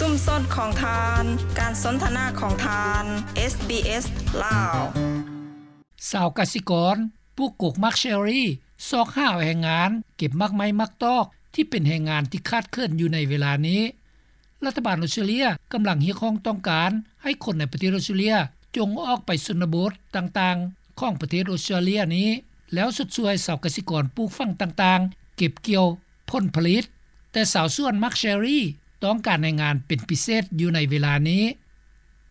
ຊຸມຊົນຂອງທ່ານ, ການສົນທະນາຂອງທ່ານ ເອສບີເອສ ລາວ. ຊາວກະສິກອນປູກກົກໝາກເຊີຣີ ຊອກຫາແຮງງານເກັບໝາກໄມ້ໝາກຕອກ ທີ່ເປັນແຮງງານທີ່ຂາດເຂີນຢູ່ໃນເວລານີ້. ລັດຖະບານອົດສະຕຣາເລຍກຳລັງຮຽກຮ້ອງຕ້ອງການໃຫ້ຄົນໃນປະເທດອົດສະຕຣາເລຍຈົ່ງອອກໄປຊົນນະບົດຕ່າງໆຂອງປະເທດອົດສະຕຣາເລຍນີ້ ແລ້ວຊົດຊ່ວຍຊາວກະສິກອນປູກຝັງຕ່າງໆເກັບກ່ຽວຜົນຜະລິດ, ແຕ່ຊາວສວນໝາກເຊີຣີຕ້ອງການແຮງງານເປັນພິເສດຢູ່ໃນເວລານີ້.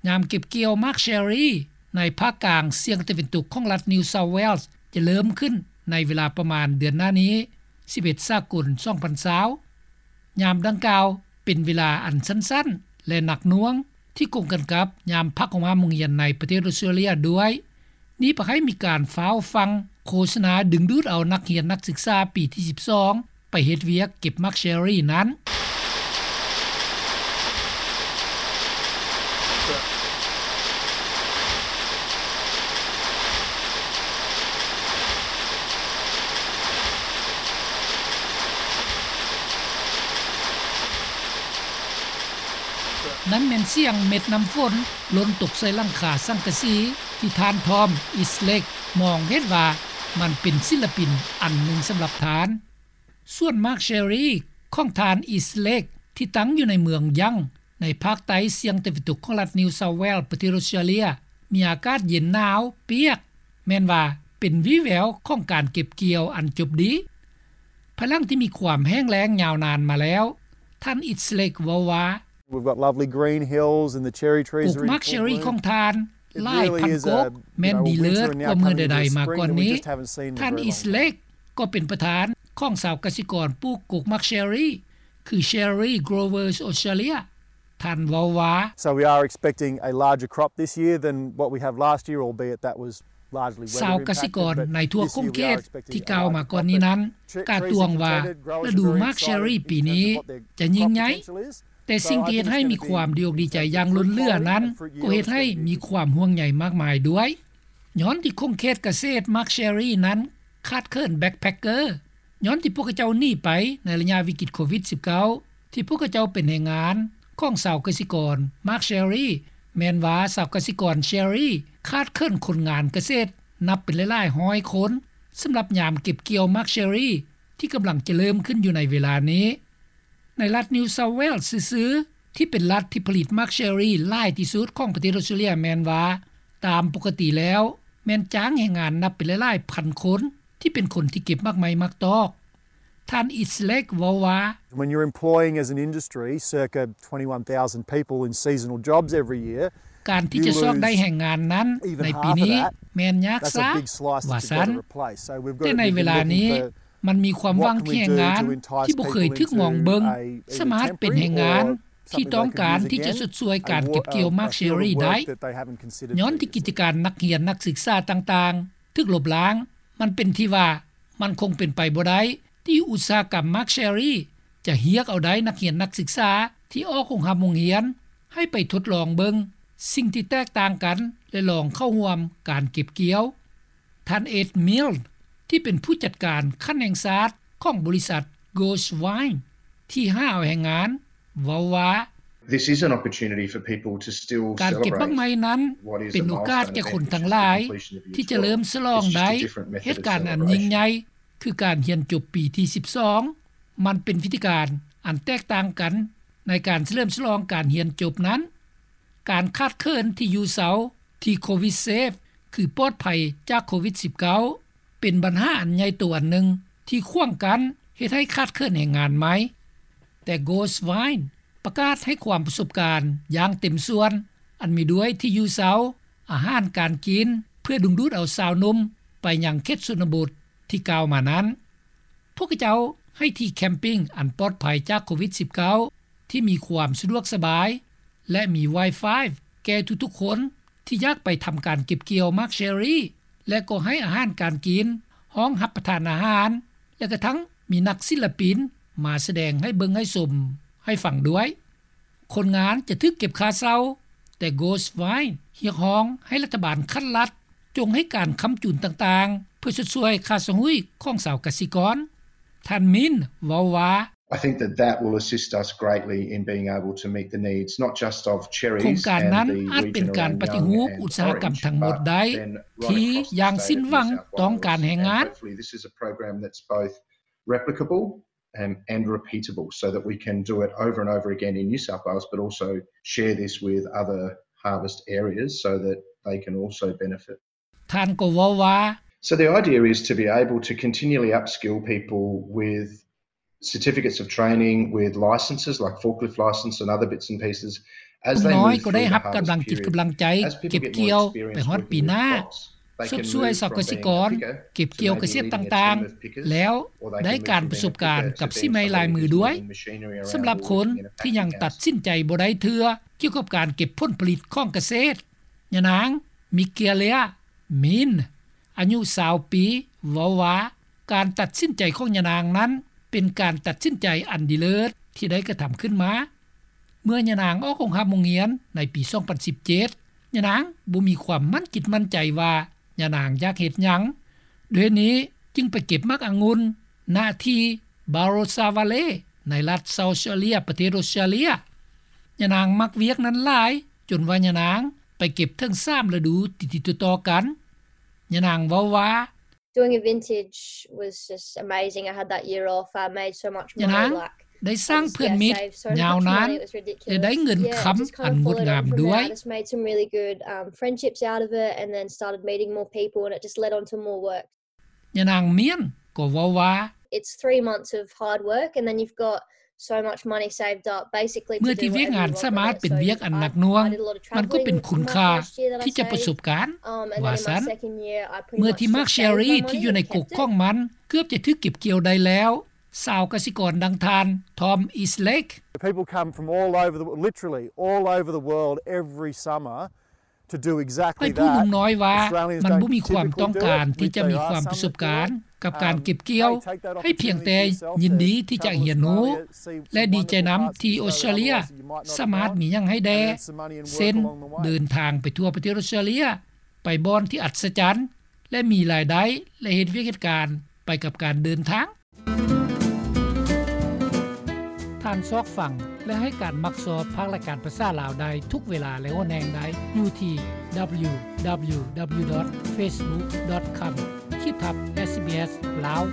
ຍາມເກັບກ່ຽວໝາກເຊີຣີໃນພາກກາງສຽງຕາເວັນຕົກຂອງລັດ New South Wales ຈະເລີ່ມຂຶ້ນໃນເວລາປະມານເດືອນໜ້ານີ້ ສິບເອັດ ສາກົນ ສອງພັນຊາວ. ຍາມດັ່ງກ່າວເປັນເວລາອັນສັ້ນໆ ແລະ ໜັກໜ່ວງ ທີ່ກົງກັນກັບຍາມພັກໂຮງຮຽນໃນປະເທດອົດສະຕຣາເລຍດ້ວຍ. ນີ້ເພື່ອໃຫ້ມີການຟ້າວຟັງໂຄສະນາດຶງດູດເອົານັກຮຽນນັກສຶກສາປີທີສິບສອງ ໄປເຮັດວຽກເກັບໝາກເຊີຣີນັ້ນ. ນັ້ນແມ່ນສຽງເມັດນ້ຳຝົນຫຼົ່ນຕົກໃສ່ຫຼັງຄາສັງກະສີ ທີ່ທ່ານ Tom Eastlake ມອງເຫັນວ່າມັນເປັນສິນລະປິນອັນໜຶ່ງສຳລັບທ່ານ. ສວນໝາກເຊີຣີຂອງທ່ານ Eastlake ທີ່ຕັ້ງຢູ່ໃນເມືອງ Young ໃນພາກໃຕ້ສຽງຕາເວັນຕົກຂອງລັດ New South Wales ປະເທດອົດສະຕຣາເລຍ ມີອາກາດເຢັນໜາວປຽກ, ແມ່ນວ່າເປັນວີແວວຂອງການເກັບກ່ຽວອັນຈົບດີ. ພາຍຫຼັງທີ່ມີຄວາມແຫ້ງແລ້ງຍາວນານມາແລ້ວ, ທ່ານ Eastlake ເວົ້າວ່າ We've got lovely green hills and the cherry trees are in full bloom. ກົກໝາກເຊີຣີຂອງທ່ານຫຼາຍພັນກົກ ແມ່ນດີເລີດກວ່າເມື່ອໃດໆມາກ່ອນນີ້. ທ່ານ Eastlake ກໍເປັນປະທານຂອງຊາວກະສິກອນປູກກົກໝາກເຊີຣີ ຄື Cherry Growers Australia. ທ່ານເວົ້າວ່າ So we are expecting a larger crop this year than what we have last year, albeit that was largely weather impacted. ຊາວກະສິກອນໃນທົ່ວຂົງເຂດທີ່ກ່າວມາກ່ອນນີ້ນັ້ນ ກາດຕວງວ່າລະດູໝາກເຊີຣີປີນີ້ຈະຍິ່ງໃຫຍ່, ແຕ່ສິ່ງທີ່ເຮັດໃຫ້ມີຄວາມດີອົກດີໃຈຢ່າງລົ້ນເຫຼືອນັ້ນ ກໍເຮັດໃຫ້ມີຄວາມຫ່ວງໃຍມາກມາຍດ້ວຍ. ຍ້ອນທີ່ຂົງເຂດກະເສດໝາກເຊີຣີນັ້ນຂາດເຂີນ backpacker, ຍ້ອນທີ່ພວກເຂົາເຈົ້າໜີໄປໃນໄລຍະວິກິດໂຄວິດສິບເກົ້າ ທີ່ພວກເຂົາເຈົ້າເປັນແຮງງານຂອງຊາວກະສິກອນໝາກເຊີຣີ, ແມ່ນວ່າຊາວກະສິກອນເຊີຣີຂາດເຂີນຄົນງານກະເສດນັບເປັນຫຼາຍໆຮ້ອຍຄົນ ສຳລັບຍາມເກັບກ່ຽວໝາກເຊີຣີທີ່ກຳລັງຈະເລີ່ມຂຶ້ນຢູ່ໃນເວລານີ້. ໃນລັດ New South Wales ຊື່ໆ ທີ່ເປັນລັດທີ່ຜະລິດໝາກເຊີຣີຫຼາຍທີ່ສຸດຂອງປະເທດອົດສະຕຣາເລຍ ແມ່ນວ່າ ຕາມປົກກະຕິແລ້ວແມ່ນຈ້າງແຮງງານນັບເປັນຫຼາຍໆພັນຄົນ ທີ່ເປັນຄົນທີ່ເກັບໝາກໄມ້ໝາກຕອກ. ທ່ານ Eastlake ເວົ້າວ່າ When you're employing as an industry circa twenty-one thousand people in seasonal jobs every year, ການທີ່ຈະຊອກໄດ້ແຮງງານນັ້ນໃນປີນີ້ແມ່ນຍາກຊ້າ ວ່າຊັ້ນ. ແຕ່ໃນເວລານີ້ມັນມີຄວາມຫວັງທີ່ແຮງງານທີ່ບໍ່ເຄີຍຖືກມອງເບິ່ງ ສາມາດເປັນແຮງງານທີ່ຕ້ອງການທີ່ຈະຊົດຊ່ວຍການເກັບກ່ຽວໝາກເຊີຣີໄດ້. ຍ້ອນທີ່ກິດຈະການນັກຮຽນນັກສຶກສາຕ່າງໆຖືກລົບລ້າງ, ມັນເປັນທີ່ວ່າມັນຄົງເປັນໄປບໍ່ໄດ້ທີ່ອຸດສາຫະກຳໝາກເຊີຣີຈະຮຽກເອົາໄດ້ນັກຮຽນນັກສຶກສາທີ່ອອກໂຮງຮ່ຳໂຮງຮຽນ ໃຫ້ໄປທົດລອງເບິ່ງສິ່ງທີ່ແຕກຕ່າງກັນ ແລະ ລອງເຂົ້າຮ່ວມການເກັບກ່ຽວ. ທ່ານ Ed Milne ທີ່ເປັນຜູ້ຈັດການຂັ້ນແຫ່ງຊາດຂອງບໍລິສັດ Goldvine ທີ່ຫາເອົາແຮງງານ ເວົ້າວ່າ This is an opportunity for people to still celebrate what is a milestone event in the completion of this job. It's just a different method of celebration. ການເກັບໝາກໄມ້ນັ້ນເປັນໂອກາດແກ່ຄົນທັງຫຼາຍທີ່ຈະເລີ່ມສະຫຼອງໄດ້ເຫດການອັນຍິ່ງໃຫຍ່ ຄືການຮຽນຈົບປີທີສິບສອງ. ມັນເປັນວິທີການອັນແຕກຕ່າງກັນໃນການສະເຫຼີມສະຫຼອງການຮຽນຈົບນັ້ນ. ການຂາດເຂີນທີ່ຢູ່ເຊົາທີ່ COVIDSafe ຄືປອດໄພຈາກໂຄວິດສິບເກົ້າ ເປັນບັນຫາອັນໃຫຍ່ໂຕອັນໜຶ່ງທີ່ຂວາງກັ້ນເຮັດໃຫ້ຂາດເຂີນແຮງງານໃໝ່. ແຕ່ Goldvine ປະກາດໃຫ້ຄວາມປະສົບການຢ່າງເຕັມສ່ວນ ອັນມີດ້ວຍທີ່ຢູ່ເຊົາ, ອາຫານການກິນ ເພື່ອດຶງດູດເອົາຊາວໜຸ່ມໄປຍັງເຂດຊົນນະບົດທີ່ກ່າວມານັ້ນ. ພວກເຂົາເຈົ້າໃຫ້ທີ່ແຄມປິງອັນປອດໄພຈາກໂຄວິດສິບເກົ້າ ທີ່ມີຄວາມສະດວກສະບາຍ ແລະ ມີ Wi-Fi ແກ່ທຸກໆຄົນທີ່ຢາກໄປທຳການເກັບກ່ຽວໝາກເຊີຣີ ແລະ ກໍໃຫ້ອາຫານການກິນ, ຫ້ອງຮັບປະທານອາຫານ ແລະ ກະທັ່ງມີນັກສິນລະປິນມາສະແດງໃຫ້ເບິ່ງໃຫ້ຊົມໃຫ້ຟັງດ້ວຍ. ຄົນງານຈະຖືກເກັບຄ່າເຊົ່າ, ແຕ່ Goldvine ຮຽກຮ້ອງໃຫ້ລັດຖະບານຂັ້ນລັດຈົ່ງໃຫ້ການຄ້ຳຈູນຕ່າງໆ ເພື່ອຊົດຊ່ວຍຄ່າຊະຫຸ້ຍຂອງຊາວກະສິກອນ. ທ່ານ Milne ເວົ້າວ່າ I think that that will assist us greatly in being able to meet the needs not just of Cherries ໂຄງການນັ້ນອາດເປັນການປະຕິຮູບອຸດສາຫະກຳທັງໝົດໄດ້ ທີ່ຢ່າງສິ້ນຫວັງຕ້ອງການແຮງງານ. Hopefully this is a program that's both replicable and, and repeatable so that we can do it over and over again in New South Wales, but also share this with other harvest areas so that they can also benefit. ທ່ານກໍເວົ້າວ່າ So the idea is to be able to continually upskill people with certificates of training, with licenses like forklift license and other bits and pieces as they move through the harvest period. ຜູ້ນ້ອຍກໍໄດ້ຮັບກຳລັງຈິດກຳລັງໃຈເກັບກ່ຽວໄປຮອດປີໜ້າ. ຊົດຊ່ວຍຊາວກະສິກອນເກັບກ່ຽວກະເສດຕ່າງໆ ແລ້ວໄດ້ການປະສົບການກັບສີໄມ້ລາຍມືດ້ວຍ. ສຳລັບຄົນທີ່ຍັງຕັດສິນໃຈບໍ່ໄດ້ເທື່ອກ່ຽວກັບການເກັບຜົນຜະລິດຂອງກະເສດ, ຍານາງ ມິເກເລຍ ມິນ ອາຍຸຊາວປີ ເວົ້າວ່າ ການຕັດສິນໃຈຂອງຍານາງນັ້ນເປັນການຕັດສິນໃຈອັນດີເລີດທີ່ໄດ້ກະທຳຂຶ້ນມາ. ເມື່ອຍານາງອອກໂຮງຮ່ຳໂຮງຮຽນໃນປີສອງພັນສິບເຈັດ ຍານາງບໍ່ມີຄວາມໝັ້ນຈິດໝັ້ນໃຈວ່າຍານາງຢາກເຮັດຫຍັງ. ດ້ວຍເຫດນີ້ຈຶ່ງໄປເກັບໝາກອະງຸ່ນ ນະທີ່ Barossa Valley ໃນລັດ South Australia ປະເທດອອສເຕຣເລຍ. ຍານາງມັກວຽກນັ້ນຫຼາຍ ຈົນວ່າຍານາງໄປເກັບເຖິງສາມລະດູຕິດໆຕໍ່ໆກັນ. ຍານາງເວົ້າວ່າ Doing a vintage was just amazing. I had that year off. I made so much money. ຍານາງໄດ້ສ້າງເພື່ອນມິດຍາວນານ ແລະ ໄດ້ເງິນຄຳອັນງົດງາມດ້ວຍ. I just made some really good, um, friendships out of it and then started meeting more people and it just led on to more work. ຍານາງ ມຽນ ກໍເວົ້າວ່າ It's three months of hard work and then you've got so much money saved up basically. ເມື່ອທີ່ວຽກງານສາມາດເປັນວຽກອັນໜັກໜ່ວງ ມັນກໍເປັນຄຸນຄ່າທີ່ຈະປະສົບການ ວ່າຊັ້ນ. ເມື່ອທີ່ໝາກເຊຣິທີ່ຢູ່ໃນກົກຂອງມັນເກືອບຈະຖືກເກັບກ່ຽວໄດ້ແລ້ວ, ຊາວກະສິກອນດັ່ງທ່ານ Tom Eastlake. People come from all over the, literally all over the world every summer. ໄປຜູ້ໜຸ່ມນ້ອຍວ່າ ມັນບໍ່ມີຄວາມຕ້ອງການທີ່ຈະມີຄວາມປະສົບການກັບການເກັບກ່ຽວ, ໃຫ້ພຽງແຕ່ຍິນດີທີ່ຈະຮຽນຮູ້ ແລະ ດີໃຈນຳທີ່ອອສເຕຣເລຍສາມາດມີຫຍັງໃຫ້ແດ່ ເຊັ່ນ ເດີນທາງໄປທົ່ວປະເທດອອສເຕຣເລຍ, ໄປບ່ອນທີ່ອັດສະຈັນ ແລະ ມີລາຍໄດ້ ແລະ ເຮັດວຽກເຮັດການໄປກັບການເດີນທາງ. ທ່ານຊອກຟັງ ແລະ ໃຫ້ການມັກຊອບພາກລາຍການພາສາລາວໄດ້ທຸກເວລາ ແລະ ໂອແນງໄດ້ຢູ່ທີ່ www.facebook.com ຂີດທັບ SBS ລາວ.